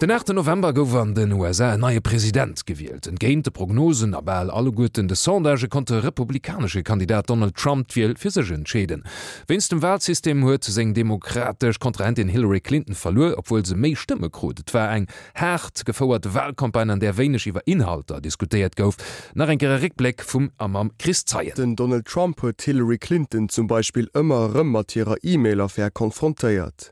Den 8 November gouf an den USA en neie President gewielt. Entgéint de Prognosen a bal alleguerten de Sondagë konnt de republikanesche Kandidat Donald Trump d'Wiel fir sech entscheeden. Wéinst dem Walsystem huet seng demokratesch Kontrahentin Hillary Clinton verluer, obwuel se méi Stëmme krut. Et war eng haart gefouert Walcampagne, an där wéineg iwwer Inhalter diskutéiert gouf. Nach eng Kéier e Réckbléck vum a mam Chris Zeien. Den Donald Trump huet d'Hillary Clinton zum Beispill ëmmer erëm mat hirer E-Mail-Affär konfrontéiert.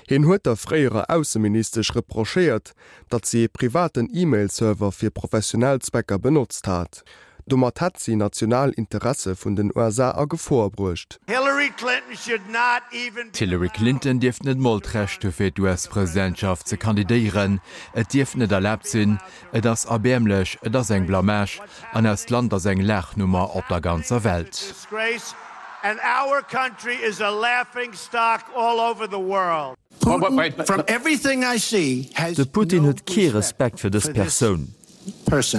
Hien huet der fréierer Ausseministesch reprochéiert, datt si ee privaten E-Mail-Server fir professionell Zwecker benotzt hat. Domat hätt si national Interesse vun den USA a Gefor bruecht. D'Hillary Clinton dierft net mol d'Recht hu fir d'US-Presidentschaft ze kandidéieren. Et dierft net erlaabt sinn. Et ass erbäermlech, et ass eng Blamage an eist Land ass eng Laachnummer op der ganzer Welt. De Putin huet kee Respekt fir dës Persoun. Dat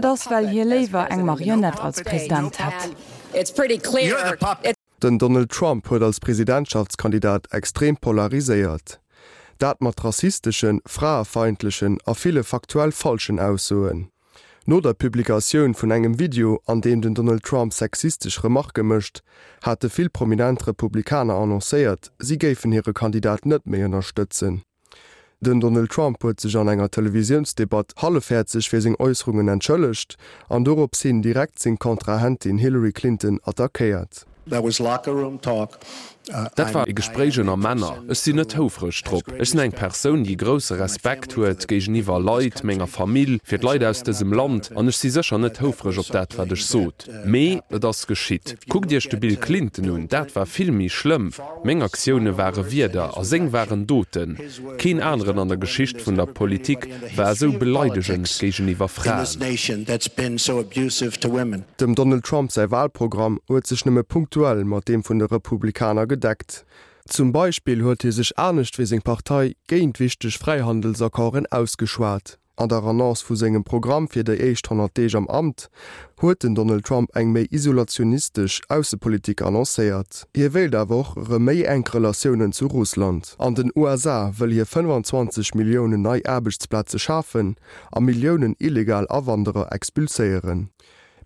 ass, well hie léiwer eng Marionett als President hätt. Den Donald Trump huet als Presidentschaftskandidat extrem polariséiert. Dat mat rassisteschen, fraefeindlechen a ville faktuell falschen Aussoen. No der Publikatioun vun engem Video, an deem den Donald Trump sexistesch Remarke mécht, hate vill prominent Republikaner annoncéiert, si géifen hire Kandidat net méi ënnerstëtzen. Den Donald Trump huet sech an enger Televisiounsdebatt hallefhäerzeg fir seng Äusserungen entschëllegt an dorops hin direkt seng Kontrahentin Hillary Clinton attackéiert. Dat war e Gespréich ënner Männer. Ech sinn net houfreg drop. Ech sinn eng Persoun, déi grousse Respekt huet géigeniwwer Leit, menger Famill, fir d'Leit aus dësem Land, an ech si sécher net houfreg op dat, wat ech sot. Mee et ass geschitt. Kuckt Iech de Bill Clinton un, dat war vill méi schlëmm. Meng Aktioune ware Wierder a seng waren Doten. Keen aneren an der Geschicht vun der Politik war esou beleidegend géigeniwwer Fraen. Dem Donald Trump säi Walprogramm huet sech nëmme punktuell mat deem vun de Republikaner gedeckt. Zum Beispill huet hie sech anescht wéi seng Partei géint wichteg Fräihandelsaccorden ausgeschwat. An der Annonce vu sengem Programm fir déi éischt 100 Deeg am Amt huet den Donald Trump eng méi isolationistesch Aussepolitik annoncéiert. Hie wéilt awer och erëm méi enk Relatiounen zu Russland. An den USA wëll hie 25 Milliounen nei Aarbechtsplaze schafen a Milliounen illegal Awanderer expulséieren.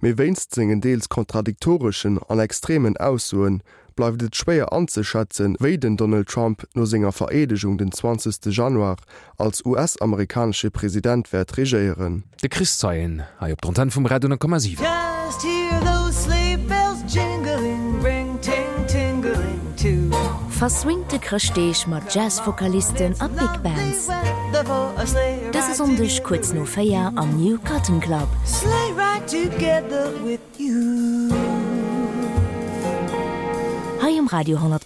Mee wéinst sengen deels kontradiktoreschen an extremen Aussoe bleift et schwéier anzeschätzen, wéi den Donald Trump no senger Vereedegung den 20 Januar als US-amerikanesche President wäert regéieren. De Chris Zeien hei op der Antenn vum Radio 10,7. Verswingte Chrëschtdeeg mat Jazz-Vokalisten a Big Bands. Dëse Sonndeg kuerz no 4 am New Cotton Club. Hei um Radio 10,7.